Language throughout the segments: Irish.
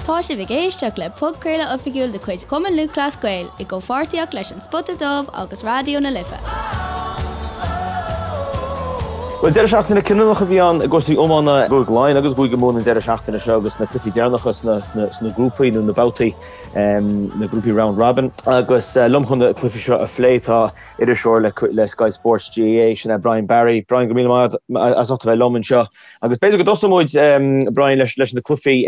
Tá sibh ag éisteacht le podchraoladh oifigiúil de chuid Chumann Lúthchleas Gael i gcomhpháirtíocht leis An Spota Dubh agus Raidió na Life. Bhuel, deireadh seachtaine cinniúnach a bhí ann i gcúrsaí iomána i gCúige Laighean agus i gCúige Mumhan an deireadh seachtaine seo agus na cluichí deireanacha sna grúpaí nó na babhtaí, na grúpaí round robin. Agus liom chun na cluichí seo a phlé tá iriseoir le Sky Sports GAA, sin é Brian Barry. Brian, go raibh míle maith agat as ucht a bheith liom anseo. Agus b'fhéidir go dtosóidh muid, Brian, leis leis na cluichí,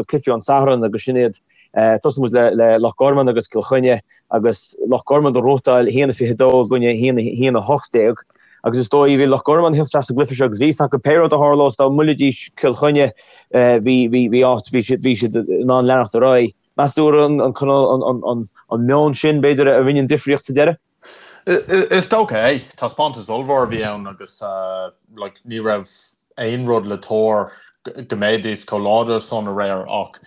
cluichí an Satharn agus sin iad. Tosóidh muid le le Loch Garman agus Cill Chainnigh agus Loch Garman ag gnóthachtáil 1-22 i gcoinne 1-18. Agus is dóigh, bhí Loch Garman ag teacht isteach sa gcluiche seo agus bhí fhios acu pé rud a tharlós dá mbuailfidís Cill Chainnigh, bhí bhí bhí áit, bhí siad bhí siad in ann leanacht ar aghaidh. Meas tú an an an meon sin, b'fhéidir, a rinne an difríocht sa deireadh? Is dócha é. Taispeántas ollmhór a bhí ann agus like ní raibh aon rud le tuar go mbeidís chomh láidir san aréir ach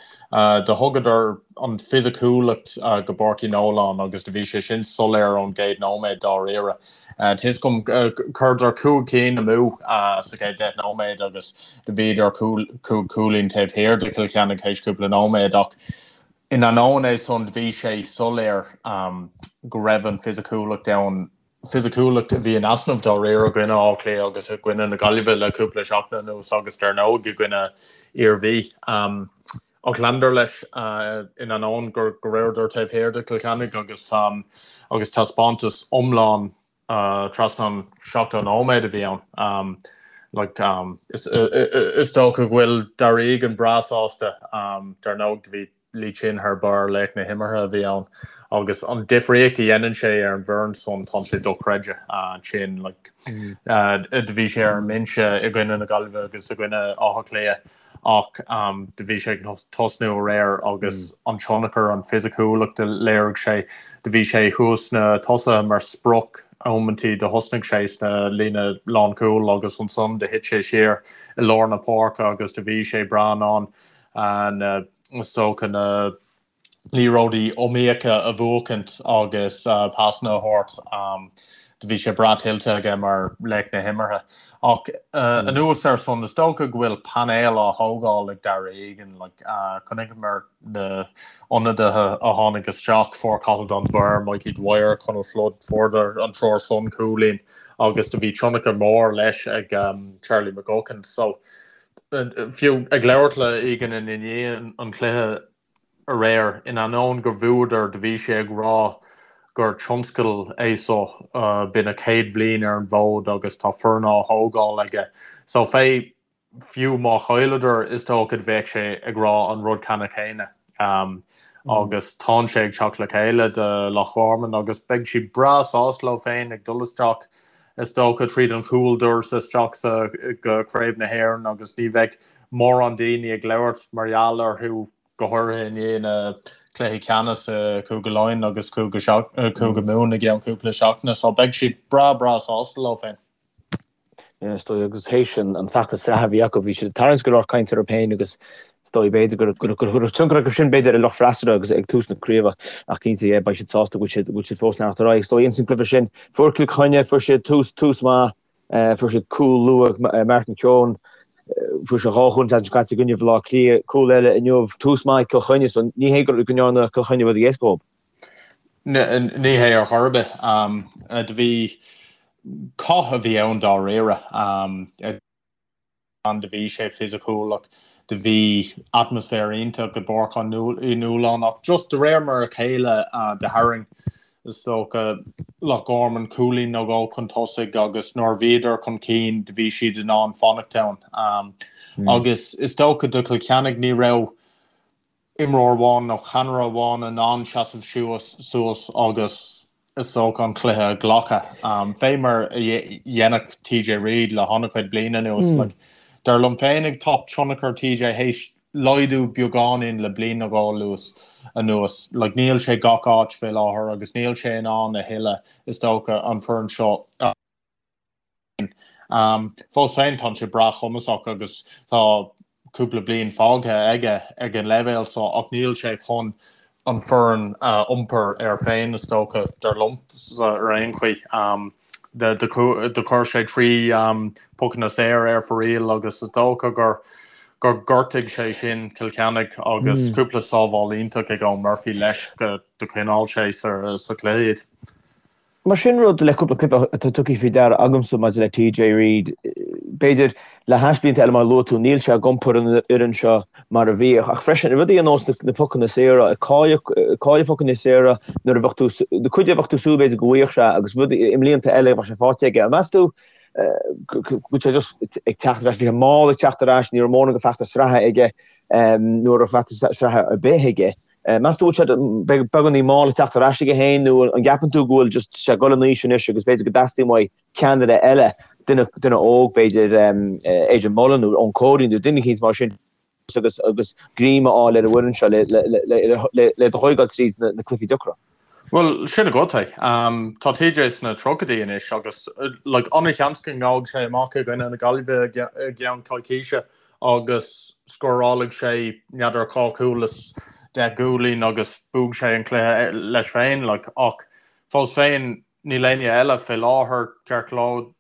do thugadar an fisiciúlacht go Páirc Uí Nualláin agus do bhí sé sin soiléir ón gcéad nóiméad dáiríre. Tá fhios agam chuireadar 5 cinn amú sa chéad 10 nóiméad agus do bhíodar 5 cúilín taobh thiar de Chill Chainnigh théis cúpla nóiméad ach In ainneoin é san, bhí sé soiléir go raibh an fisiciúlacht ann, fisiciúlacht a bhí in easnamh dáiríre i gcoinne Átha Cliath agus i gcoinne na Gaillimhe le cúpla seachtain anuas agus dar ndóigh i gcoinne Iarmhí. Ach leanadar leis in ainneoin go rabhadar taobh thiar de Chill Chainnigh agus agus taispeántas iomlán trasna an 70 nóiméad a bhí ann. Like, is dócha go bhfuil Darragh Egan breá sásta. Dar ndóigh, do bhí Lee Chin thar barr, laoch na himeartha a bhí ann. Agus an difríocht a dhéanann sé ar an bhfoireann san, tá sé dochreidte. Chin, like, do bhí sé ar an mbinse i gcoinne na Gaillimhe agus i gcoinne Átha Cliath. ach do bhí sé ag tosnú aréir agus an tionchar, an fisiciúlacht a léirigh sé, do bhí sé thuas sna tosaithe mar sprioc amantaí, do thosnaigh sé sna líne lánchúil agus ansan do thit sé siar i lár na páirce agus do bhí sé breá in ann na, is dócha, na liathróidí iomaíocha a bhuachaint agus pasanna a thabhairt. Do bhí sé breá tuillte aige mar laoch na himeartha. Ach anuas ar san, is dócha go bhfuil painéal á thógáil ag Darragh Egan. Chonaiceamar na ionadaithe a tháinig isteach, fuair Cathal Dunbar, Mikey Dwyer, Conal Flood, fuaireadar an triúr san cúilín agus do bhí tionchar mór leis ag Charlie McGuckin. So fiú ag labhairt le Egan i ndiaidh an chluiche, aréir, in ainneoin gur bhuadar, do bhí sé ag rá gur tionscadal é so, b'in a chéad bhliain ar an bhfód agus tá foireann á thógáil aige. So fé, fiú má chailleadar, is dócha bheadh sé ag rá an rud ceanna céanna. Agus tánn sé ag teacht le chéile do Loch Garman agus beidh siad breá sásta leo féin ag dul isteach, is dócha, tríd an chúldoras isteach sa go Craobh na hÉireann agus ní bheidh mórán daoine ag labhairt mar gheall orthu, go háirithe i ndiaidh na cluichí ceannais i Cúige Laighean agus Cúige Mumhan i gceann cúpla seachtaine. So beidh siad breá breá sásta leo féin. Is dóigh agus théis an feachtas sraithe a bhí acu, bhí siad ag tarraingt go leor cainte orthu féin agus is dóigh b'fhéidir go raibh tionchar acu sin b'fhéidir ar lucht freasúra agus ag tús na craoibhe ach cinnte yeah beidh siad sásta go bhfuil siad fós ag leanacht ar aghaidh. Is dóigh ins an gcluiche sin fuair Cill Chainnigh, fuair siad tús tús maith Fuair siad cúl luath, Martin Keoghan, fuair sé dhá chúl an tseachtain seo caite i gcoinne Bhaile Átha Cliath, cúl eile inniu, tús maith ag Cill Chainnigh, so ní hé go ndearna Cill Chainnigh rud éasca dóibh. Ní hé ar chor ar bith. Do bhí cath a bhí ann dáiríre. ann, do bhí sé fisiciúil ach do bhí atmaisféar iontach i bPáirc Uí Nualláin ach just de réir mar a chéile do tharraing is dócha Loch Garman cúilín nó dhó chun tosaigh agus nuair a bhíodar chun cinn do bhí siad in ann fanacht ann. Agus is dócha do Chill Chainnigh ní raibh imreoir amháin nó ceannaire amháin in ann seasamh suas agus is dócha an cluiche a ghlacadh, fé mar a dhéanadh TJ Reid le han-chuid bliain anuas. Like, dar liom féinig tá tionchar TJ théis laghdú beagáinín le bliain nó dhó anuas. Like, níl sé gach áit fé láthair agus níl sé in ann a thuilleadh, is dócha, an foireann seo a. Fós féin, tá sé breá cumasach agus tá cúpla bliain fágtha aige ag an leibhéal seo ach níl sé chun an foireann a iompar air féin, is dócha, dar liomsa ar aon chaoi. Do chuir sé 3 pocanna saor ar fóraoil agus is dócha gur gur ghortaigh sé sin Cill Chainnigh agus cúpla sábháil iontach ag Eoin Murphy leis go do choinneáil sé sa chluiche iad. Mar sin rud le cúpla cluiche atá tugtha faoi deara agamsa maidir le TJ Reid, b'fhéidir le hais blianta eile mar a luaigh tú, níl sé ag iompar an fhoireann seo mar a bhíodh. Ach freisin, rudaí ar nós na pocanna saora, ag cailleadh pocanna saora nuair a bheadh tú, na cuid a bheadh tú ag súil b'fhéidir go bhfaigheadh sé agus rudaí i mblianta eile bheadh sé faighte aige. An meas tú go bhfuil sé just ag teacht ar ais, bhí sé mall ag teacht ar ais, ní raibh mórán de feachtas sraithe aige nó raibh feachtas sraithe ar bith aige. Meas tú go bhfuil sé beagáinín mall ag teacht ar ais aige féin nó an gceapann tú go bhfuil just sé ag dul in aois anois agus b'fhéidir go dteastaíonn uaidh ceannaire eile, duine, duine óg b'fhéidir, Adrian Mullen nó Eoin Cody nó duine eicínt mar sin agus, agus greim a fháil ar an bhfoireann seo le, le, le, le, le, le thógáil tríd na, na cluichí deacra. Bhuel, sin agat é. Tá TJ sna tríochaidí anois agus like, an-sheans go ngabhfaidh sé amach i gcoinne na Gaillimhe i gceann coicíse agus scórálfaidh sé n'fheadar dhá chúl is 10 gcúilín agus buafaidh sé an cluiche leis féin like, ach fós féin níl éinne eile fé láthair ceart go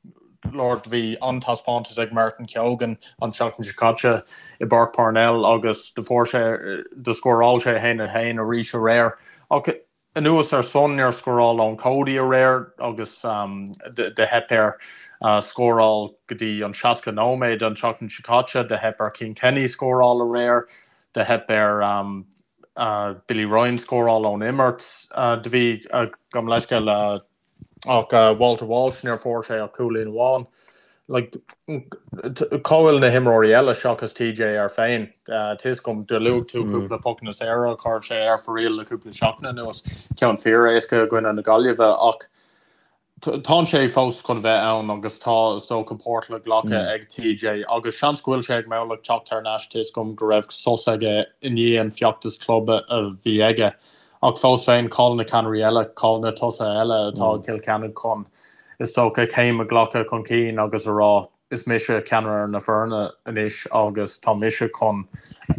leor bhí an-taispeántas ag Martin Keoghan an tseachtain seo caite i bPáirc Parnell agus do fuair sé do scóráil sé 1-1 arís aréir ach Anuas ar san, níor scóráil Eoin Cody aréir agus do theip air scóráil go dtí an 60 nóiméad an tseachtain seo caite. Do theip ar Cian Kenny scóráil aréir. Do theip ar Billy Ryan scóráil ón imirt. Do bhí, gabh mo leithscéal, Ach Walter Walsh, níor fuair sé ach cúilín amháin. Like, cá bhfuil na himreoirí eile seachas TJ air féin? Tá fhios agam, do luaigh tú cúpla pocanna saora a chuir sé ar fóraoil le cúpla seachtain anuas, ceann fíor-éasca i gcoinne na Gaillimhe, ach tánn sé fós chun bheith ann agus tá, is dócha, páirt le glacadh ag TJ agus seans go bhfuil sé ag meabhlach teacht thar n-ais, tá fhios agam go raibh sos aige i ndiaidh an feachtas club a bhí aige. Ach fós féin, cá'il na ceannairí eile, cá'il na tosaithe eile atá ag Cill Chainnigh chun, is dócha, céim a ghlacadh chun cinn agus a rá, is mise ceannaire na foirne anois agus tá mise chun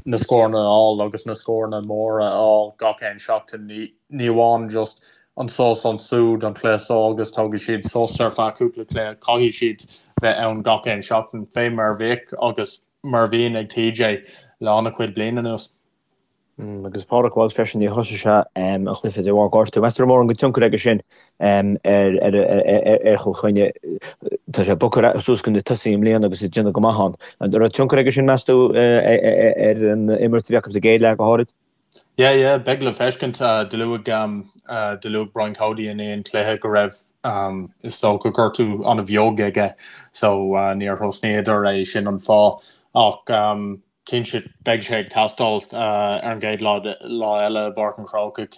na scóranna a fháil agus na scóranna móra a fháil gach aon seachtain, ní amháin just anso is ansúd an cluiche seo agus tógfaidh siad sos ar feadh cúpla cluiche, caithfidh siad bheith ann gach aon seachtain, fé mar a bhíodh agus mar a bhíonn ag TJ le an-chuid bliain anuas. Agus Pádraig Walsh freisin, níor thosaigh sé an cluiche de bharr gortú. Meas tú an raibh mórán de tionchar aige sin ar Chill Chainnigh? Tá sé bogtha suas go na tosaithe i mbliana agus ag déanamh go maith ann. An raibh tionchar aige sin, meas tú, ar an imirt a bhí acu sa gcéad leath go háirid? Yeah, yeah, beidh le feiscint. Do luaigh, do luaigh Brian Cody i ndiaidh an chluiche go raibh, is dócha, gortú an-bheag aige so níor thosnaíodar é, sin an fáth. Ach Cinnte, beidh sé ag teastáil ar an gcéad lá eile i bPáirc an Chrócaigh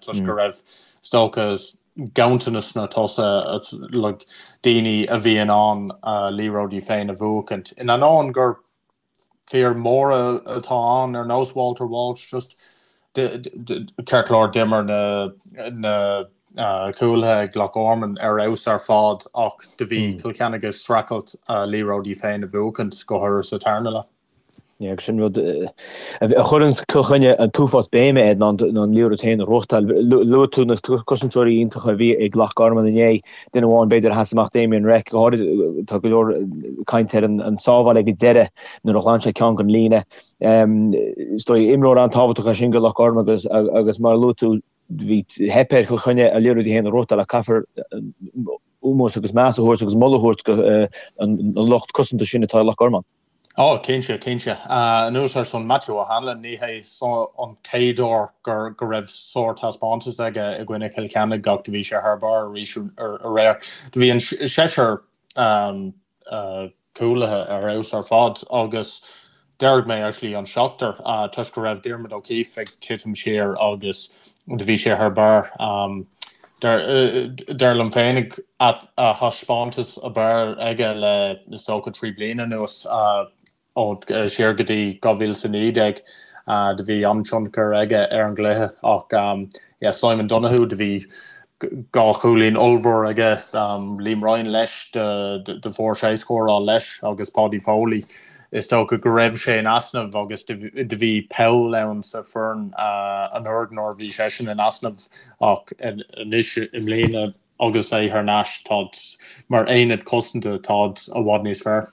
toisc go raibh, is dócha, ganntanas sna tosaithe, like, daoine a bhí in ann a liathróidí féin a bhuachaint. In ainneoin gur fir móra atá ann ar nós Walter Walsh, just ceart go leor d'imir na cúlaithe ag Loch Garman ar fheabhas ar fad ach do bhí Cill Chainnigh ag streachailt a liathróidí féin a bhuachaint, go háirithe sa tarna leath. Yeah, agus sin rud a chuireann Cill Chainnigh an t-uafás béime air ná an liathróid féin a ghnóthachtáil. Luaigh tú na cosantóirí iontacha a bhí ag Loch Garman inné, duine amháin b'fhéidir a sheas amach Damien Reck, go háirid tá go leor cainte ar an sábháil ag an deireadh nuair a ghlan sé ceann den líne. Is dóigh imreoir an-tábhachtach é sin do Loch Garman agus agus mar a luaigh tú bhí theip ar Chill Chainnigh a liathróidí féin a ghnóthachtáil ach caithfear ómós agus meas a thabhairt agus moladh a thabhairt do an lucht cosanta sin atá i Loch Garman. Ó, cinnte, cinnte. Anuas ar san, Matthew O'Hanlon, ní hé seo an chéad uair gur go raibh sár-taispeántas aige i gcoinne Chill Chainnigh ach do bhí sé thar barr arís aréir. Do bhí an seisear cúlaithe ar fheabhas ar fad agus déarfaidh mé actually an seachtar toisc go raibh Diarmuid O'Keeffe ag titim siar agus do bhí sé thar barr. Dar liom féinig a thaispeántas ab fhearr aige le is dócha 3 bliana anuas. Ó siar go dtí 2019 do bhí an-tionchar aige ar an gcluiche ach yeah Simon Donoghue do bhí dhá chúilín ollmhór aige, Liam Ryan leis do fuair sé scóráil leis agus Paudie Foley is dócha go raibh sé in easnamh agus do bhí poll ann sa foireann anuraidh nuair a bhí seisean in easnamh ach anois i mbliana agus é thar n-ais táid mar aonad cosanta táid i bhfad níos fearr.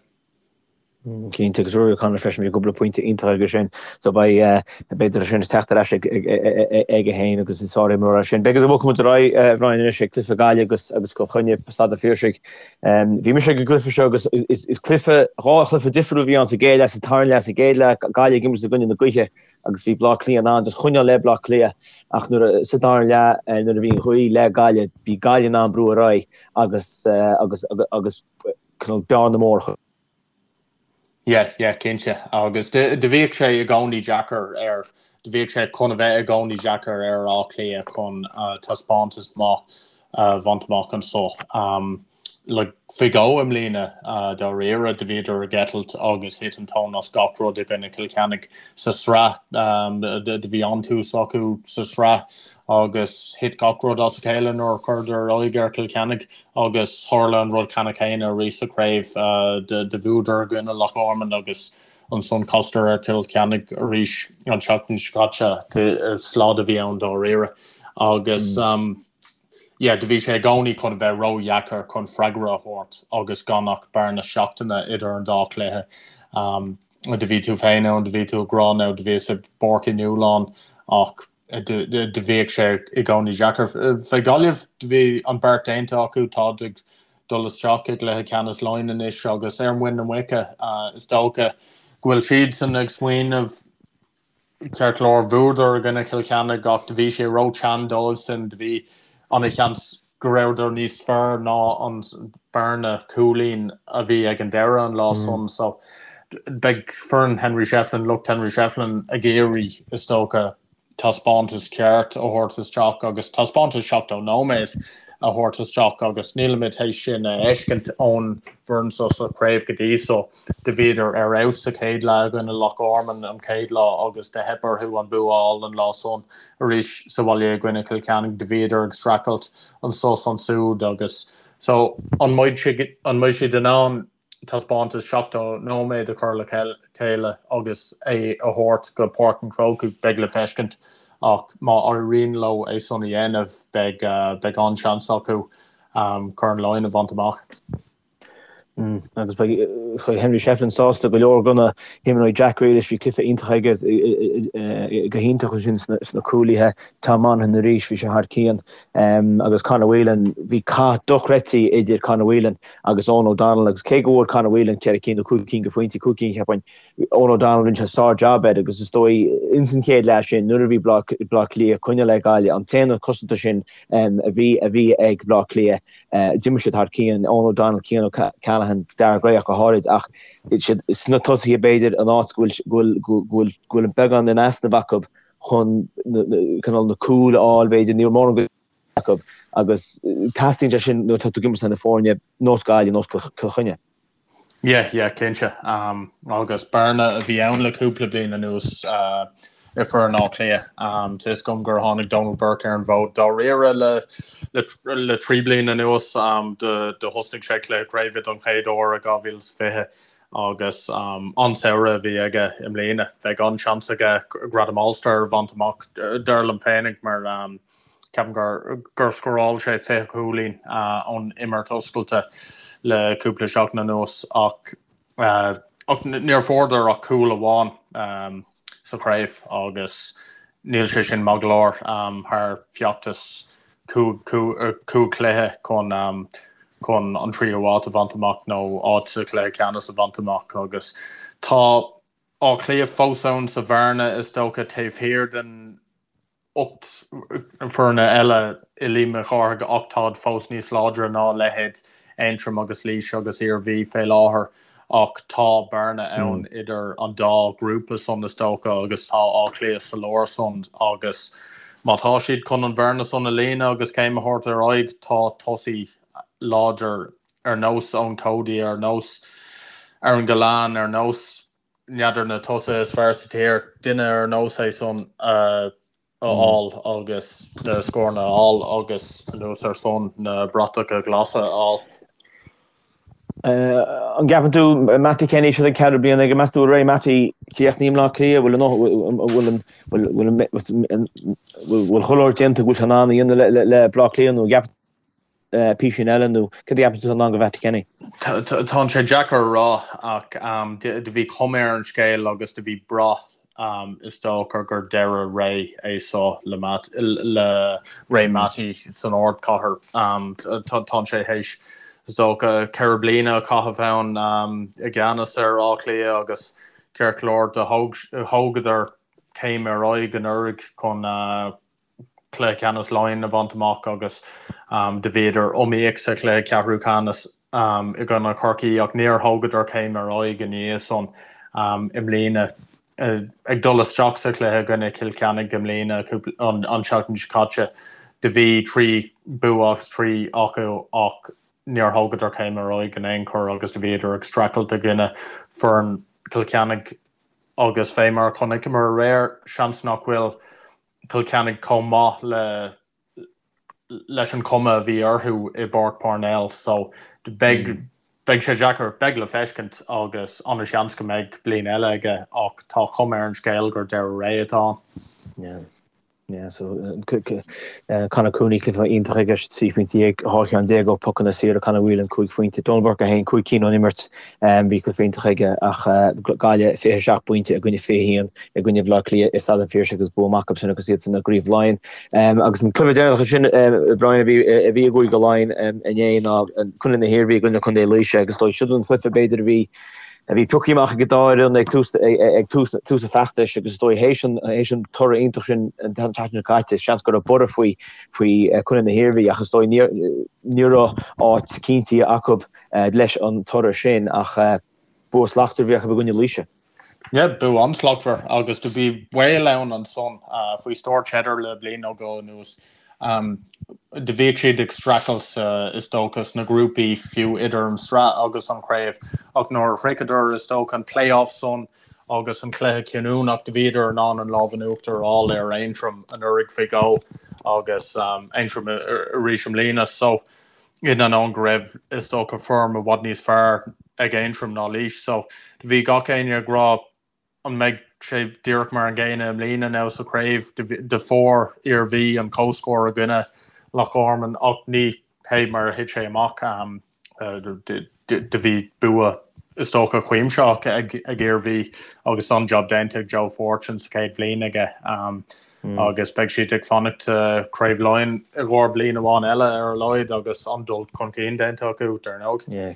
Cinnte, agus Rory O'Connor freisin, bhí cúpla pointe iontach aige sin. So beidh, b'fhéidir sin ag teacht ar ais aige féin agus is sár-imreoir é sin. B'fhéidir go mbogfaidh muid ar aghaidh, a Bhrian, anois ag cluiche Gaillimh agus agus Cill Chainnigh, Staid an Phiarsaigh. Bhí mise ag an gcluiche seo agus is cluiche, dhá chluiche difriúil a bhí ann sa gcéad leath, sa tarna leath, sa gcéad leath, Gaillimh ag imirt i gcoinne na gaoithe agus bhí Bleá Cliath in ann just choinneáil le Bleá Cliath ach nuair a, sa dara leath, nuair a bhí an ghaoth le Gaillimh, bhí Gaillimh in ann brú ar aghaidh agus agus agus cineál bearna mór a chur. Yeah, yeah, cinnte. Agus do bhíodh sé i gcónaí deacair ar, do bhíodh sé chun a bheith i gcónaí deacair ar Áth Cliath chun taispeántas maith a bhaint amach anso. Like, faoi dhó i mbliana, dáiríre, do bhíodar ag eitilt agus thit an tóin as gach rud i gcoinne Chill Chainnigh sa sraith. Do bhí an-tús acu sa sraith agus thit gach rud as a chéile nuair a chuireadar aghaidh ar Chill Chainnigh agus tharla an rud ceannann céanna arís sa chraobh. Do bhuadar i gcoinne Loch Garman agus ansan chasadar ar Chill Chainnigh arís an tseachtain seo caite. Slad a bhí ann dáiríre agus yeah do bhí sé i gcónaí chun a bheith ródheacair chun freagra a thabhairt agus gan ach bearna seachtaine idir an dá chluiche. Do bhí tú féin ann, do bhí tú ag rá now do bhíos i bPáirc Uí Nualláin ach do bhíodh sé i gcónaí deacair. Fé Ghaillimh, do bhí an beart déanta acu, táid ag dul isteach i gcluiche ceannais Laighean anois agus ar muin na muice, is dócha go bhfuil siadsan ag smaoineamh, ceart go leor, bhuadar i gcoinne Chill Chainnigh ach do bhí sé ró-teann dóibhsan, do bhí ana-sheans go rabhadar níos fearr ná an bearna cúilín a bhí ag an deireadh an lá san. So beidh foireann Henry Shefflin, lucht Henry Shefflin ag iarraidh, is dócha, taispeántas ceart a thabhairt isteach agus taispeántas 70 nóiméad a thabhairt isteach agus nílimid théis sin a fheiscint ón bhfoireann so sa chraobh go dtí so. Do bhíodar ar fheabhas sa chéad leath i gcoinne Loch Garman an chéad lá agus do theip orthu an bua a fháil an lá san. Arís sa bhaile i gcoinne Chill Chainnigh do bhíodar ag streachailt anso 's ansúd agus so an mbeidh an mbeidh siad in ann taispeántas 70 nóiméad a chur le chéile agus é a thabhairt go Páirc an Chrócaigh beidh le feiscint ach má éiríonn leo é san a dhéanamh beidh beidh an-seans acu Corn Laighean a bhaint amach. Agus beidh Henry Shefflin sásta go leor de na himreoirí Jack Grealish, bhí cluiche iontach aige go hiontach ansin sna cúlaithe, Tom Monaghan arís, bhí sé thar cionn agus Conor Whelan, bhí cath dochreidte idir Conor Whelan agus Eoghan O'Donnell agus cé go bhfuair Conor Whelan ceithre cinn nó cúig cinn de phointí, cúig cinn cheapfainn, Eoghan O'Donnell rinne sé sár-jab air agus is dóigh ins an chéad leath sin nuair a bhí Bleá Cliath ag coinneáil le Gaillimh, an t-aonad cosanta sin a bhí a bhí ag Bleá Cliath, D'imir siad thar cionn, Eoghan O'Donnell, Cian O'Callaghan, Daire Gray ach go háirid, ach sna tosaithe b'fhéidir an áit go bhfuil go bhfuil go bhfuil beagán in easnamh acu chun cineál na cúil a fháil b'fhéidir, ní raibh mórán acu agus teastaíonn sé sin nuair atá tú ag imirt na foirne nós Gaillimh, nós Cill Chainnigh. Yeah, yeah, cinnte. Agus bearna a bhí ann le cúpla bliain anuas i foireann Átha Cliath. Tá fhios agam gur tháinig Donal Burke ar an bhfód dáiríre le le 3 bliana anuas. Do thosnaigh sé cluiche craoibhe don chéad uair i 2020 agus an-samhradh a bhí aige i mbliana. Bheadh an-seans aige gradam All-Star a bhaint amach, dar liom féinig, mar Ceapaim gur gur scóráil sé 20 cúilín ón imirt oscailte le cúpla seachtain anuas ach ach níor fuaireadar ach cúl amháin sa chraobh agus níl sé sin maith go leor thar feachtas cúig chluiche chun chun an tríú háit a bhaint amach nó áit sa chluiche ceannais a bhaint amach agus tá Áth Cliath fós ann sa bhearna is dócha taobh thiar den 8 foirne eile i Liam Mhic Cárthaigh ach táid fós níos láidre ná leithéid Aontroim agus Laois agus Iarmhí fé láthair ach tá bearna ann idir an dá ghrúpa san is dócha agus tá Áth Cliath sa lár san agus má tá siad chun an bhearna san a líonadh agus céim a thabhairt ar aghaidh tá tosaí láidir ar nós Eoin Cody, ar nós Aaron Gillane, ar nós n'fheadar na tosaithe is fearr sa tír, duine ar nós é san a fháil agus na scóranna a fháil agus anuas ar san na bratacha glasa a fháil. An gceapann tú, Mattie Kenny, seo an ceathrú bliain aige, meas tú bhfuil ré Mattie críochnaithe i mBleá Cliath, bhfuil an bhfuil bhfuil chuile shórt déanta go bhfuil sé in ann a dhéanamh le Bleá Cliath nó an gceapann. písín eile nó cad a cheapann tú atá i ndán do Mhattie Kenny? Tá sé deacair a rá ach do bhí cuma ar an scéal agus do bhí brath is dócha gur deireadh ré é seo le le ré Mattie san ardchathair. Tá sé théis is dócha 4 bliana a chaitheamh ann i gceannas ar Áth Cliath agus ceart go leor do thógadar céim ar aghaidh anuraidh chun cluiche ceannais Laighean a bhaint amach agus do bhíodar iomaíoch sa chluiche ceathrú ceannais i gcoinne Chorcaí ach níor thógadar céim ar aghaidh i ndiaidh san i mbliana. Ag dul isteach sa chluiche i gcoinne Chill Chainnigh i mbliana an tseachtain seo caite do bhí 3 bua as 3 acu ach níor thógadar céim ar aghaidh in aon chor agus do bhíodar ag streachailt i gcoinne foireann Chill Chainnigh agus fé mar a chonaiceamar aréir seans nach bhfuil Cill Chainnigh chomh maith le leis an chuma a bhí orthu i bPáirc Parnell so beidh beidh sé deacair, beidh le feiscint agus an-seans go mbeidh bliain eile aige ach tá cuma ar an scéal gur deireadh ré atá ann. Yeah. Yeah, so Conor Cooney cluiche iontach aige, 13 phointe, 12 cheann ó pocanna saora, Conor Whelan 5 phointe, Donal Burke 1, 5 cinn ón imirt, bhí cluiche iontach aige ach Gaillimh 27 pointe i gcoinne 21 i gcoinne Bhaile Átha Cliath i Staid an Phiarsaigh agus bua maith acu sin agus iad san i gCraobh Laighean. Agus an cluiche deireanach sin, Brian, a bhí a bhí i gCúige Laighean inné ná Contae na hIarmhí i gcoinne Contae Laoise agus is dóigh siod an cluiche b'fhéidir a bhí a bhí pioctha amach ag an dá fhoireann ag tús ag tús tús an feachtais agus is dóigh théis an théis an toradh iontach sin an tseachtain seo caite seans go raibh borradh faoi faoi Contae na hIarmhí ach is dóigh ní ní raibh áit cinntithe acu leis an toradh sin ach bua slachtmhar a bhí acu i gcoinne Laoise. Yeah, bua an-slachtmhar agus do bhí baol ann ansan faoi stiúir Cheddar le bliain nó dhó anuas. Do bhíodh siad ag streachailt is dócha sna grúpaí fiú idir an sraith agus an chraobh ach nuair a shroicheadar is dócha an play-off san agus an cluiche cinniúnach do bhíodar in ann an lámh in uachtar a fháil ar Aontroim anuraidh faoi dhó agus Aontroim arís i mbliana. So in ainneoin go raibh, is dócha, foirm i bhfad níos fearr ag Aontroim ná Laois. So, bhí gach éinne ag rá an mbeidh sé díreach mar an gcéanna i mbliana now sa chraobh. Do fuair Iarmhí an comhscór i gcoinne Loch Garman ach ní hé mar a thit sé amach. Do bhí bua, is dócha, cuimsitheach ag Iarmhí agus an-jab déanta ag Joe Fortune sa chéad bhliain aige. Agus beidh siad ag fanacht sa Chraobh Laighean i gcomhair bliain amháin eile ar a laghad agus an-dul chun cinn déanta acu, dar ndóigh. Yeah,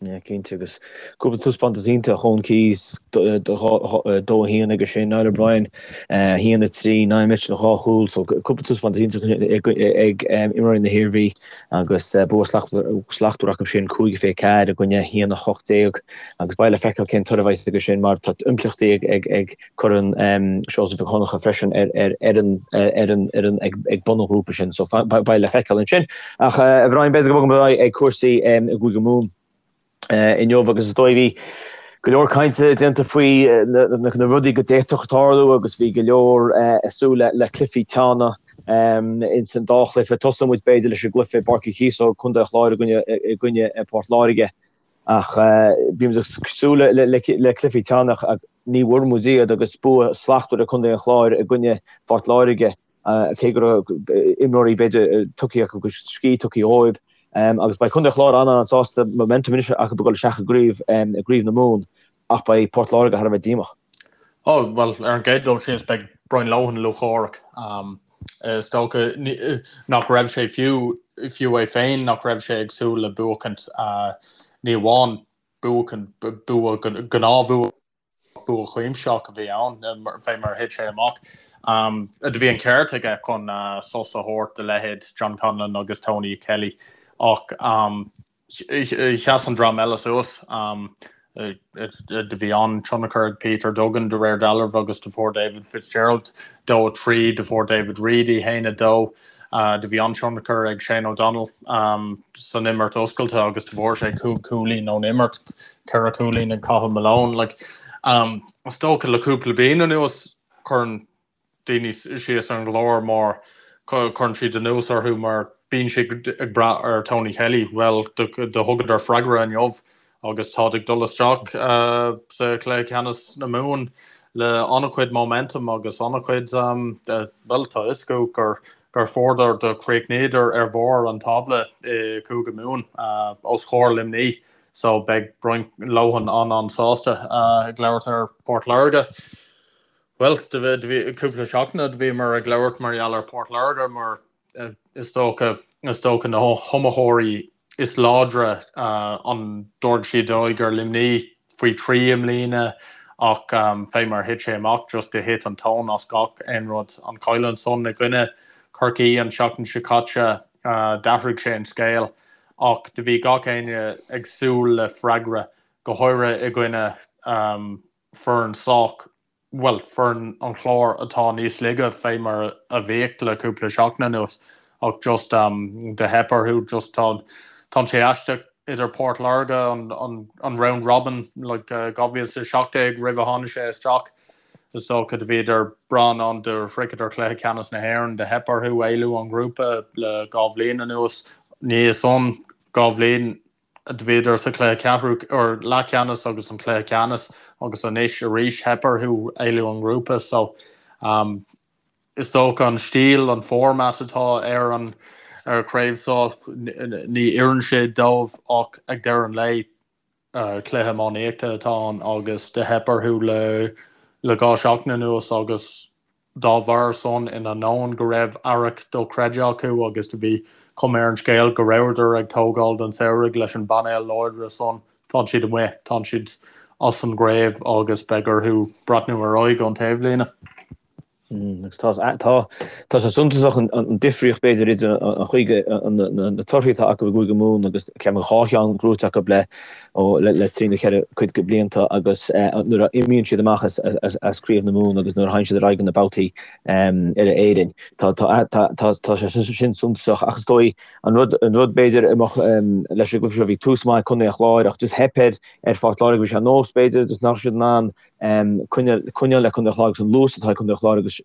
yeah, cinnte. Agus cúpla taispeántas iontach, Eoin Keyes, 2-1 aige sin, Niall O'Brien, 1-3, Niall Mitchell, 2 chúl. So cúpla taispeántas iontach ag imreoirí na hIarmhí agus bua slachtmhar acu sin, 5-24 i gcoinne 1-18. Agus beidh le feiceáil cén toradh a bheidh aige sin mar tá impleachtaí ag Corn Seosamh Mhic Dhonncha freisin ar an fhoireann ag bun an ghrúpa sin, so beidh le feiceáil ansin. Ach a Bhriain, b'fhéidir go mbogfaimid ar aghaidh ag cúrsaí i gCúige Mumhan inniu agus is dóigh bhí go leor cainte déanta faoi na rudaí go d'fhéadfadh tarlú agus bhí go leor ag súil le cluichí teanna ins an dá chluiche. Tosóidh muid b'fhéidir leis an gcluiche i bPáirc Uí Chíosóg, Contae an Chláir i gcoinne Port Láirge. Ach bhí muid ag súil le cluichí teanna ach ní bhfuair muid iad agus bua slachtmhar ag Contae an Chláir i gcoinne Phort Láirge, cé go raibh imreoirí b'fhéidir tugtha acu agus scíth tugtha dhóibh. Agus beidh Contae an Chláir an-an-sásta momentum anois acu ag dul isteach i gcraobh na Mumhan ach beidh Port Láirge thar a bheith díomách. Ó, bhuel, ar an gcéad dul síos beidh Brian Lohan lúcháireach. Is dócha nach raibh sé fiú, fiú é féin, nach raibh sé ag súil le buachaint, ní amháin buachaint, bua, gnáthbhua, bua cuimsitheach a bhí ann, fé mar a thit sé amach. Do bhí an ceart aige chun sos a thabhairt do leithéid John Conlon agus Tony Kelly ach Sheas an dream eile suas. Do bhí an-tionchar ag Peter Duggan de réir dealraimh agus do fuair David Fitzgerald 2, 3, do fuair David Reidy 1, 2. Do bhí an-tionchar ag Shane O'Donnell san imirt oscailte agus do fuair sé 5 chúilín ón imirt, 4 chúilín ag Cathal Malone. Like, is dócha le cúpla bliain anuas cuireann daoine síos ar an gClár mar cuireann siad anuas orthu mar bíonn siad ag brath ar Tony Kelly. Bhuel, do thugadar freagra inniu agus táid ag dul isteach sa chluiche ceannais na Mumhan le an-chuid momentum agus an-chuid, bhuel, tá fhios acu gur. gur fuaireadar do chríochnaíodar ar bharr an tábla i Cúige Mumhan os comhair Luimní so beidh Brian Lohan an-an-sásta ag labhairt ar Port Láirge. Bhuel, do bhí cúpla seachtain do bhíomar ag labhairt mar gheall ar Port Láirge mar is dócha, is dócha na hiomaitheoirí is láidre an dtabharfaidh siad aghaidh ar Luimní faoi thrí i mbliana ach fé mar thit sé amach just do thit an tóin as gach aon rud. An cailliúint san i gcoinne Chorcaí an tseachtain seo caite d'athraigh sé an scéal ach do bhí gach éinne ag súil le freagra, go háirithe i gcoinne foireann sách bhuel, foireann an Chláir atá níos laige fé mar a bhíodh le cúpla seachtain anuas ach just do theip orthu just tá tá sé aisteach idir Port Láirge an an an round robin like 2017 roimh a tháinig sé isteach is dócha do bhíodar breá in ann do shroicheadar cluiche ceannais na hÉireann do theip orthu éalú ón ngrúpa le 2 bhliain anuas ní san 2 bhliain Do bhíodar sa chluiche ceathrú or leathcheannais agus an cluiche ceannais agus anois arís theip orthu éalú ón ngrúpa so um, is dócha an stíl, an format atá ar an ar chraobh seo ní oireann sé dóibh ach ag deireadh an lae uh, cluiche iománaíochta atá ann agus do theip orthu le le 2 seachtain anuas agus Dá bharr san, in ainneoin go raibh earrach dochreidte acu agus do bhí cuma ar an scéal go rabhadar ag tógáil don samhradh leis an bpainéal láidre san, tá siad amuigh, tá siad as an gcraobh agus beidh orthu breathnú ar aghaidh ón taobhlíne. Agus tá, tá, tá sé suntasach an difríocht b'fhéidir idir an chaoi go, na torthaí atá acu i gCúige Mumhan agus ceapaim 2 cheann gnóite acu le ó le trí nó cheithre cuid de blianta agus nuair a imíonn siad amach as Craobh na Mumhan agus nuair a théann siad ar aghaidh go na babhtaí uile Éirinn. Tá tá sé sin suntasach ach is dóigh an rud an rud b'fhéidir a mbeadh leis an gcluiche seo bhí tús maith ag Contae an Chláir ach just theip ar ar Phort Láirge bhí sé ar nós b'fhéidir just nach raibh siad in ann coinneáil coinneáil le Contae an Chláir agus an luas atá ag Contae an Chláir agus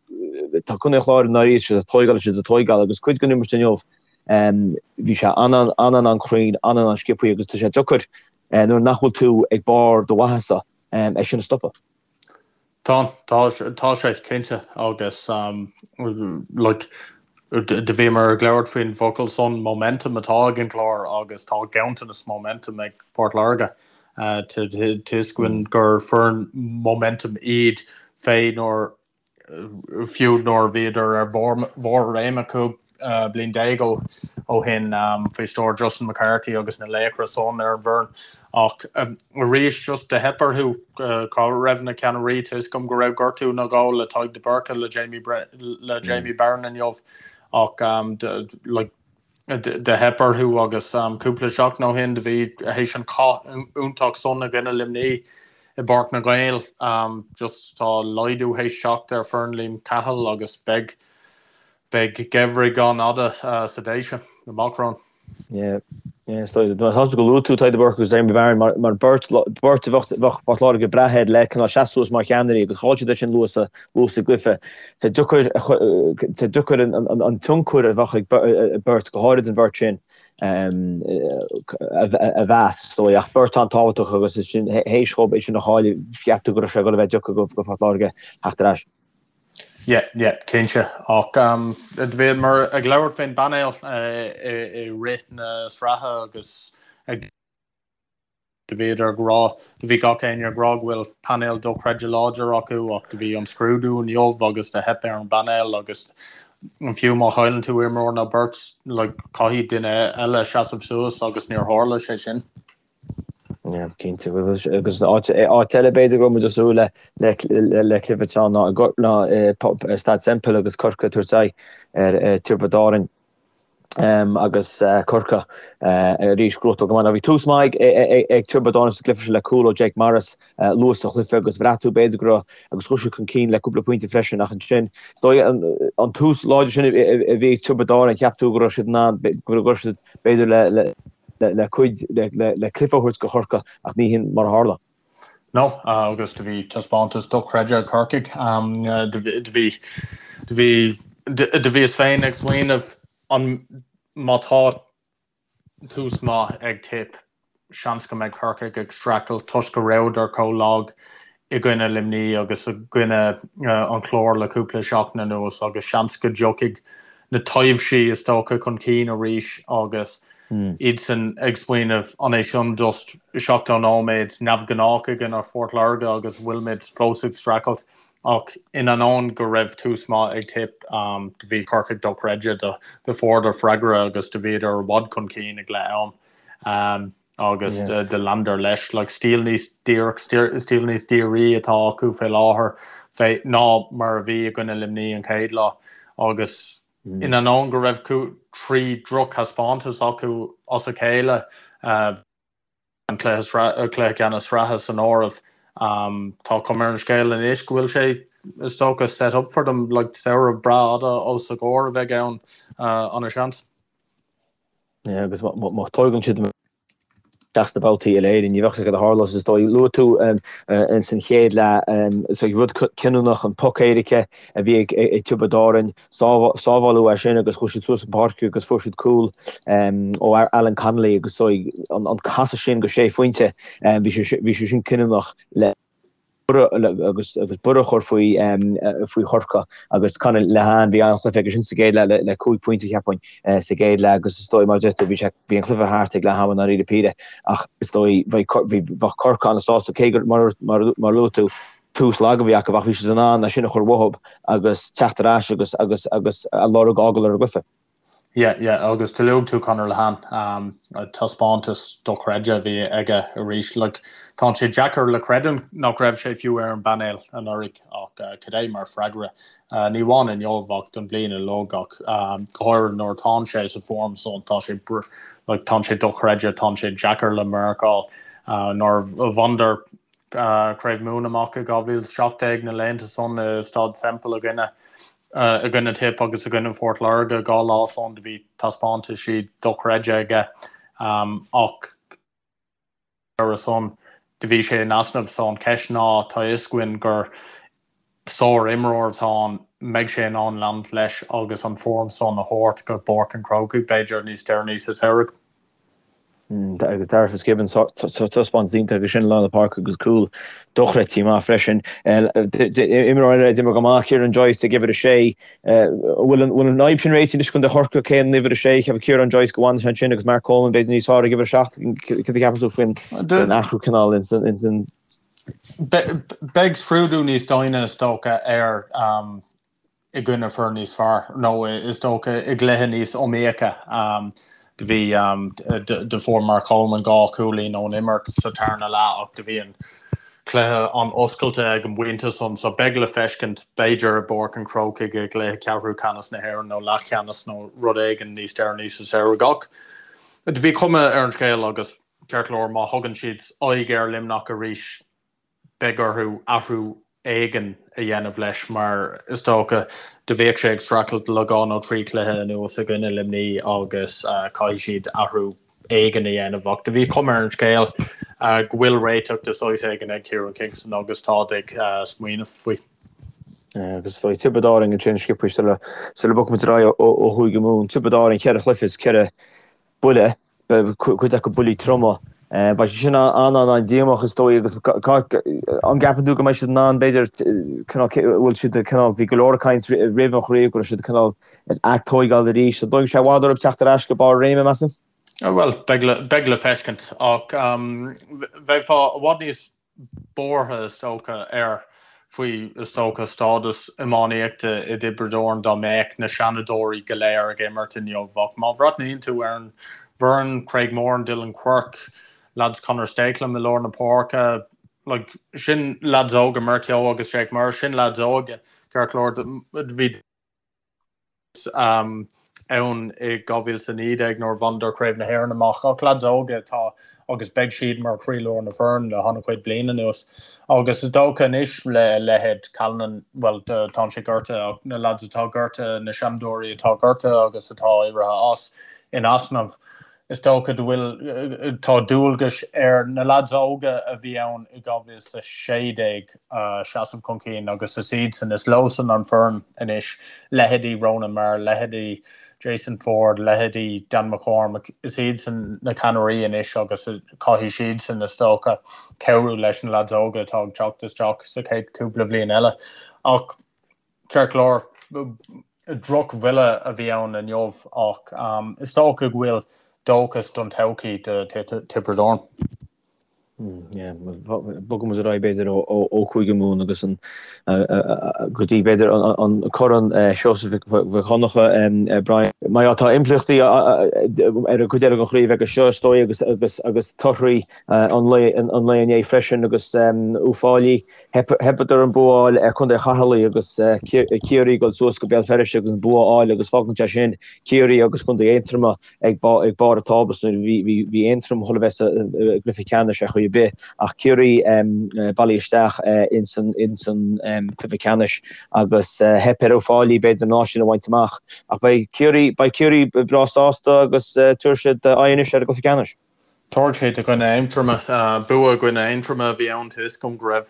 tá Contae an Chláir i ndáiríre siad ag tóigeáil siad ag tóigeáil agus cuid den imirt inniu Bhí sé an-an-an-an-chruinn, an-an-an-sciobthaí agus tá sé deacair nuair nach bhfuil tú ag barr do mhaitheasa é sin a stopadh. Tá, tá, tá sé, cinnte, agus like do bhíomar ag labhairt faoin bhfocal san momentum atá ag an gClár agus tá ganntanas momentum ag Port Láirge. Tá fhios againn gur foireann momentum iad fé nuair fiú nuair a bhíodar ar bharr a réime 15 bliain ó shin faoi stiúir Justin McCarthy agus na laochra san ar an bhfoireann. Ach arís just do theip orthu. Cá raibh na ceannairí? Tá fhios agam go raibh gortú nó dhó le Tadhg de Búrca le Jamie le Jamie Barron inniu ach like do theip orthu agus cúpla seachtain ó shin do bhí théis an cath iontach san i gcoinne Luimní i bPáirc na nGael. Just tá laghdú théis teacht ar foireann Liam Cahill agus beidh beidh geimhreadh an-fhada sa Déise amach romhainn. Yeah. Yeah, so tá tú go luaigh tú Tadhg de Búrca agus Jamie Barron mar mar beirt beirt a bheadh bheadh Port Láirge ag brath air le cineál seasamh suas mar cheannairí agus chaill siad é sin luath sa luath sa gcluiche. Tá deacair tá deacair an tionchar a bheadh ag beirt, go háirid an bheirt sin, a mheas, is dóigh. Ach beirt an-tábhachtach agus is sin théis dhóibh é sin a chailleadh, cheap tú go raibh sé ag dul a bheith deacair do Phort Láirge theacht ar ais. Yeah, yeah, cinnte. Ach do bhíomar ag labhairt faoin bpainéal i rith na sraithe agus ag. Do bhíodar ag rá, do bhí gach éinne ag rá go bhfuil painéal dochreidte láidir acu ach do bhí an scrúdú inniu agus do theip ar an bpainéal agus fiú má chailleann tú imreoir nó beirt like caithfidh duine eile seasamh suas agus níor tharla sé sin. Yeah, cinnte. Agus áit eile b'fhéidir go raibh muid ag súil le le cluiche teann ná ná Staid Semple agus Corcaigh ag tabhairt aghaidh ar Tiobraid Árann. agus Corcaigh arís gnóthachtáil go maith. Now bhí tús maith ag Tiobraid Árann sa gcluiche seo le cúl ó Jake Morris luath sa chluiche agus bhraith tú b'fhéidir go raibh agus chuaigh siad chun cinn le cúpla pointe freisin ach ansin is dóigh an tús láidir sin a bhí ag Tiobraid Árann cheap tú go raibh siad in ann go raibh siad b'fhéidir le le cuid le cluiche a thabhairt go Chorcaigh ach ní hin mar a tharla. No, agus do bhí taispeántas dochreidte ag Corcaigh. Do bhí, do bhí, do bhíos féin ag smaoineamh an má tá tús maith ag Tipp, seans go mbeidh Corcaigh ag streachailt toisc go rabhadar chomh lag i gcoinne Luimní agus i gcoinne an Chláir le cúpla seachtain anuas agus seans go dtiocfaidh. na taibhsí is dócha chun cinn arís agus iadsan ag smaoineamh an é sin just 70 nóiméad neamhghnách i gcoinne Phort Láirge agus bhfuilimid fós ag streachailt ach in ainneoin go raibh tús maith ag Tipp do bhí Corcaigh dochreidte do fuaireadar freagra agus do bhíodar i bhfad chun cinn ag leath am. Agus do leanadar leis. Like, stíl níos díreach, stíl níos dírí atá acu fé láthair fé ná mar a bhí i gcoinne Luimní an chéad lá. Agus in ainneoin go raibh 3 drochthaispeántas acu as a chéile, an cluiche cluiche ceannais sraithe san áireamh, tá cuma ar an scéal anois go bhfuil sé, is dócha, set up for them, like, samhradh breá fhada os a gcomhair a bheidh ann, ana-sheans. Agus má tógann siad isteach sna babhtaí uile-Éireann, ní bheadh sé cad a tharlós is dóigh. Luaigh tú ins an chéad leath is dóigh rud cinniúnach an poc éirice a bhí ag Tiobraid Árann, sábháladh é sin agus chuaigh siad suas an pháirc agus fuair siad cúl ó Alan Connolly agus is dóigh an casadh sin go sé phointe, bhí sé sin cinniúnach le. agus borradh a chur faoi faoi Chorcaigh agus Conor Lehane bhí an-chluiche aige sin sa gcéad leath le 5 pointe cheapfainn sa gcéad leath agus is dóigh mar a deir tú bhí sé bhí an cluiche thart ag leath ama i ndáiríre píre ach is dóigh bheadh bheadh Corcaigh an-sásta cé gur mar mar mar luaigh tú tús lag a bhí acu ach bhí siad in ann é sin a chur uathu agus teacht ar ais agus agus agus a lorg a fhágáil ar an gcluiche. Yeah, yeah, agus do luaigh tú Conor Lehane, taispeántas dochreidte a bhí aige arís. Like, tá sé deacair le creidiúint nach raibh sé fiú ar an bpainéal anuraidh ach cad é mar freagra. Ní amháin inniu ach don bhliain uilig ach go háirithe nuair atánn sé sa form san tá sé like, tá sé dochreidte, tá sé deacair le marcáil. Nuair a bhaineadar Craobh Mumhan amach i 2017 na laethanta san i Staid Semple i gcoinne i gcoinne Tipp agus i gcoinne Phort Láirge 2 lá san do bhí taispeántaisí dochreidte aige ach ar a son do bhí sé in easnamh so an cheist ná tá fhios againn gur sár imreoir atá ann mbeidh sé in ann leanúint leis agus an form san a thabhairt go Páirc an Chrócaigh b'fhéidir níos deireanaí sa samhradh. Agus Darragh Fitzgibbon, taispeántas iontach aige sin i lár na páirce agus cúl dochreidte maith freisin. Imreoir eile a d'imir go maith, Ciarán Joyce ag uimhir a sé. Bhfuil an fhadhb sin réitithe anois do Chorcaigh, cé an uimhir a sé? Cheapfá Ciarán Joyce go bhfanfaidh sé ansin agus Mark Coleman b'fhéidir níos fearr ag uimhir a 7. Cad a cheapann tú faoin athrú cineál in Beidh scrúdú níos doimhne is dócha air i gcoinne foireann níos fearr, nó is dócha i gcluiche níos iomaíocha. Do bhí, do fuair Mark Coleman 2 chúilín ón imirt sa tarna leath ach do bhí an cluiche an-oscailte ag an bpointe san, so beidh le feiscint b'fhéidir i bPáirc an Chrócaigh i gcluiche ceathrú ceannais na hÉireann nó leathcheannais nó rud éigin níos deireanaí sa samhradh. Ach do bhí cuma ar an scéal agus ceart go leor má thugann siad aghaidh ar Luimneach arís, beidh orthu athrú éigin a dhéanamh leis mar is dócha do bhíodh sé ag streachailt le 2 nó 3 chluiche anuas i gcoinne Luimní agus caithfidh siad athrú éigin a dhéanamh ach do bhí cuma ar an scéal go bhfuil réiteach de saghas éigin ag Kieran Kingston agus táid ag smaoineamh faoi. Agus faoi Tiobraid Árann ansin sciobtha sula sula bogfaimid ar aghaidh ó Chúige Mumhan. Tiobraid Árann cheithre chluiche is ceithre buille. cuid acu buillí troma. Beidh sé sin an-an-an-díomách is dóigh agus an gceapann tú go mbeidh siad in ann b'fhéidir cineál bhfuil siad cineál bhí go leor ag caint roimh an chraobh go raibh siad cineál ag tóigeáil arís. An dtógfaidh sé i bhfad orthu teacht ar ais go barr a réime meas tú? Bhuel, beidh le feiscint ach bheifeá i bhfad níos buartha, is dócha, air faoi, is dócha, stádas iománaíochta i dTiobraid Árann dá mbeadh na seanadóirí go léir ag imirt inniu. Ach má bhreathnaíonn tú ar an bhfoireann, Craig Moran, Dylan Quirke, lads Conor Stakelum i lár na páirce, like, sin lads óga, Mark Kehoe agus Jake Murr, sin lads óga, ceart go leor, bhí. ann i 2019 nuair a bhaineadar Craobh na hÉireann amach ach lads óga atá agus beidh siad mar chroílár na foireann le han-chuid bliain anuas. Agus is dócha anois le leithéid Callanan, bhuel tá sé gortaithe ach na lads atá gortaithe, na seanadóirí atá gortaithe agus atá éirithe as in easnamh, is dócha go bhfuil, tá dualgais ar na lads óga a bhí ann i 2016 seasamh chun cinn agus is iadsan, is leosan an foireann anois, leithéidí Ronan Maher, leithéidí Jason Forde, leithéidí Dan McCormack, is iadsan na ceannairí anois agus caithfidh siadsan, is dócha, cabhrú leis na lads óga atá ag teacht isteach sa chéad cúpla bhliain eile. Ach ceart go leor. Drochbhuille a bhí ann inniu ach is dócha go bhfuil dóchas don todhchaí do Tiobraid Árann. Bogfaidh muid ar aghaidh b'fhéidir ó Chúige Mumhan agus an go dtí b'fhéidir an Corn Seosamh Mhic Dhonncha, Brian. Mar tá impleachtaí ar an gcuid eile den chraobh aige seo is dóigh agus agus agus torthaí an lae an lae inné freisin agus Uíbh Fhailí theipeadar an bua a fháil ar Chontae Cheatharlach agus Ciarraí ag dul suas go Béal Feirste agus an bua a fháil agus fágann sé sin Ciarraí agus Contae Aontroma ag barr an tábla so bhí Aontroim chun a bheith sa gcluiche ceannais ar chaoi ar bith ach Ciarraí bailithe isteach ins an cluiche ceannais agus theip ar Uíbh Fhailí b'fhéidir an áit sin a bhaint amach ach beidh Ciarraí beidh Ciarraí breá sásta agus tabharfaidh siad aghaidh anois ar an gcluiche ceannais. Tabharfaidh siad i gcoinne Aontroma. Bua i gcoinne Aontroma a bhí ann tá fhios agam go raibh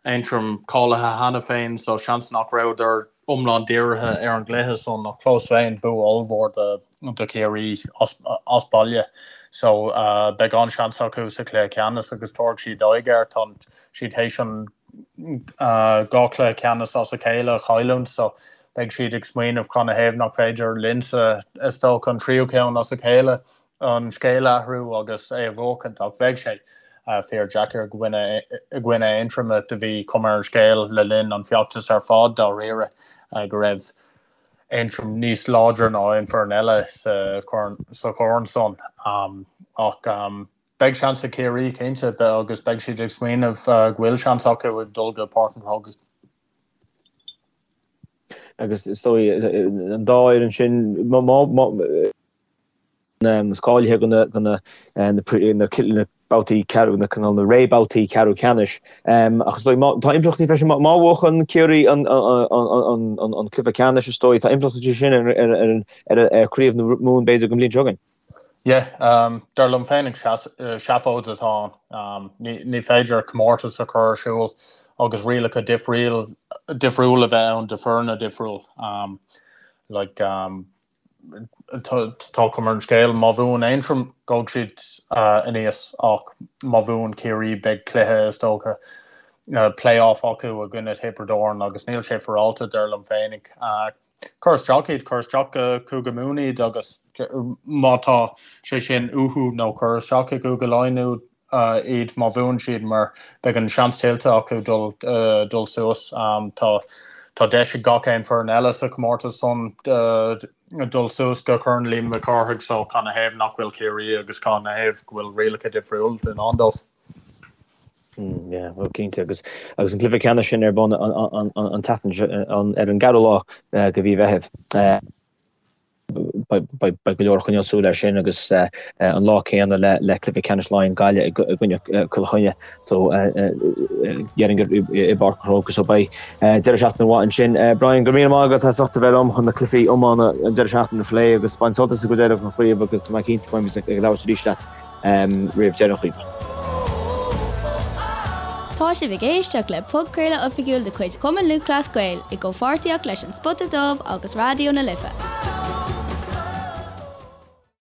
Aontroim cáilithe cheana féin so seans nach rabhadar iomlán dírithe ar an gcluiche san ach fós féin bua ollmhór do Chiarraí as baile so beidh an-seans acu sa chluiche ceannais agus tabharfaidh siad aghaidh air. Tá siad théis an 2 chluiche ceannais as a chéile a chailliúint so beidh siad ag smaoineamh canathaobh nach féidir linnse is dócha an tríú ceann as a chéile an scéal a athrú agus é a bhuachaint ach bheadh sé fíor deacair i gcoinne Aontroma. Do bhí cuma ar an scéal le linn an feachtas ar fad dáiríre go raibh Aontroim níos láidre ná aon foireann eile sa chorn san ach beidh seans ag Ciarraí cinnte agus beidh siad ag smaoineamh go bhfuil seans acu ag dul go Páirc an Chrócaigh. Agus is dóigh an dá fhoireann sin is cáilithe do na babhtaí ceathrú, na cineál na rébhabhtaí ceathrú ceannais. Ach is dóigh, tá impleachtaí freisin, má bhuachann Ciarraí an cluiche ceannais, is dóigh, tá impleachtaí sin ar chraobh na Mumhan b'fhéidir don bhliain seo chugainn. Yeah, dar liom féinig seafóid atá ann. Ní féidir comórtas a chur ar siúl agus rialacha difriúil a bheith ann do foirne difriúil. Like, Tá cuma ar an scéal, má bhuann Aontroim, gabhfaidh siad aníos ach má bhuann Ciarraí beidh cluiche, is dócha, play-off acu i gcoinne Thiobraid Árann agus níl sé féaráilte, dar liom féinig. Cuir isteach iad, cuir isteach go Cúige Mumhan iad agus má tá sé sin uathu nó cuir isteach i gCúige Laighean iad má bhuann siad mar beidh an seans tuillte acu dul dul suas. Tá tá deis ag gach aon foireann eile sa chomórtas san dul suas go Corn Liam Mhic Cárthaigh so canathaobh nach bhfuil Ciarraí agus canathaobh go bhfuil rialacha difriúil i ndán dóibh. Yeah, well cinnte agus agus an cluiche ceannais sin ar bun an an tseachtain ar an gceathrú lá de mhí Mheithimh. Beidh go leor ag coinneáil súil air sin agus an lá céanna le cluiche ceannais Laighean Gaillimh i gcoinne Cill Chainnigh so déarfainn gur i bPáirc an Chrócaigh so beidh deireadh seachtaine mhaith ansin. Brian, go raibh míle maith agat as ucht a bheith liom chun na cluichí iomána an deireadh seachtaine a phlé agus bain sult as an gcuid eile den chraobh agus tá mé cinnte go mbeidh ag labhairt arís leat roimh deireadh an chraoibhe. Tá sibh ag éisteacht le podchraoladh oifigiúil de chuid Chumann Lúthchleas Gael i gcomhpháirtíocht leis An Spota Dubh agus Raidió na Life.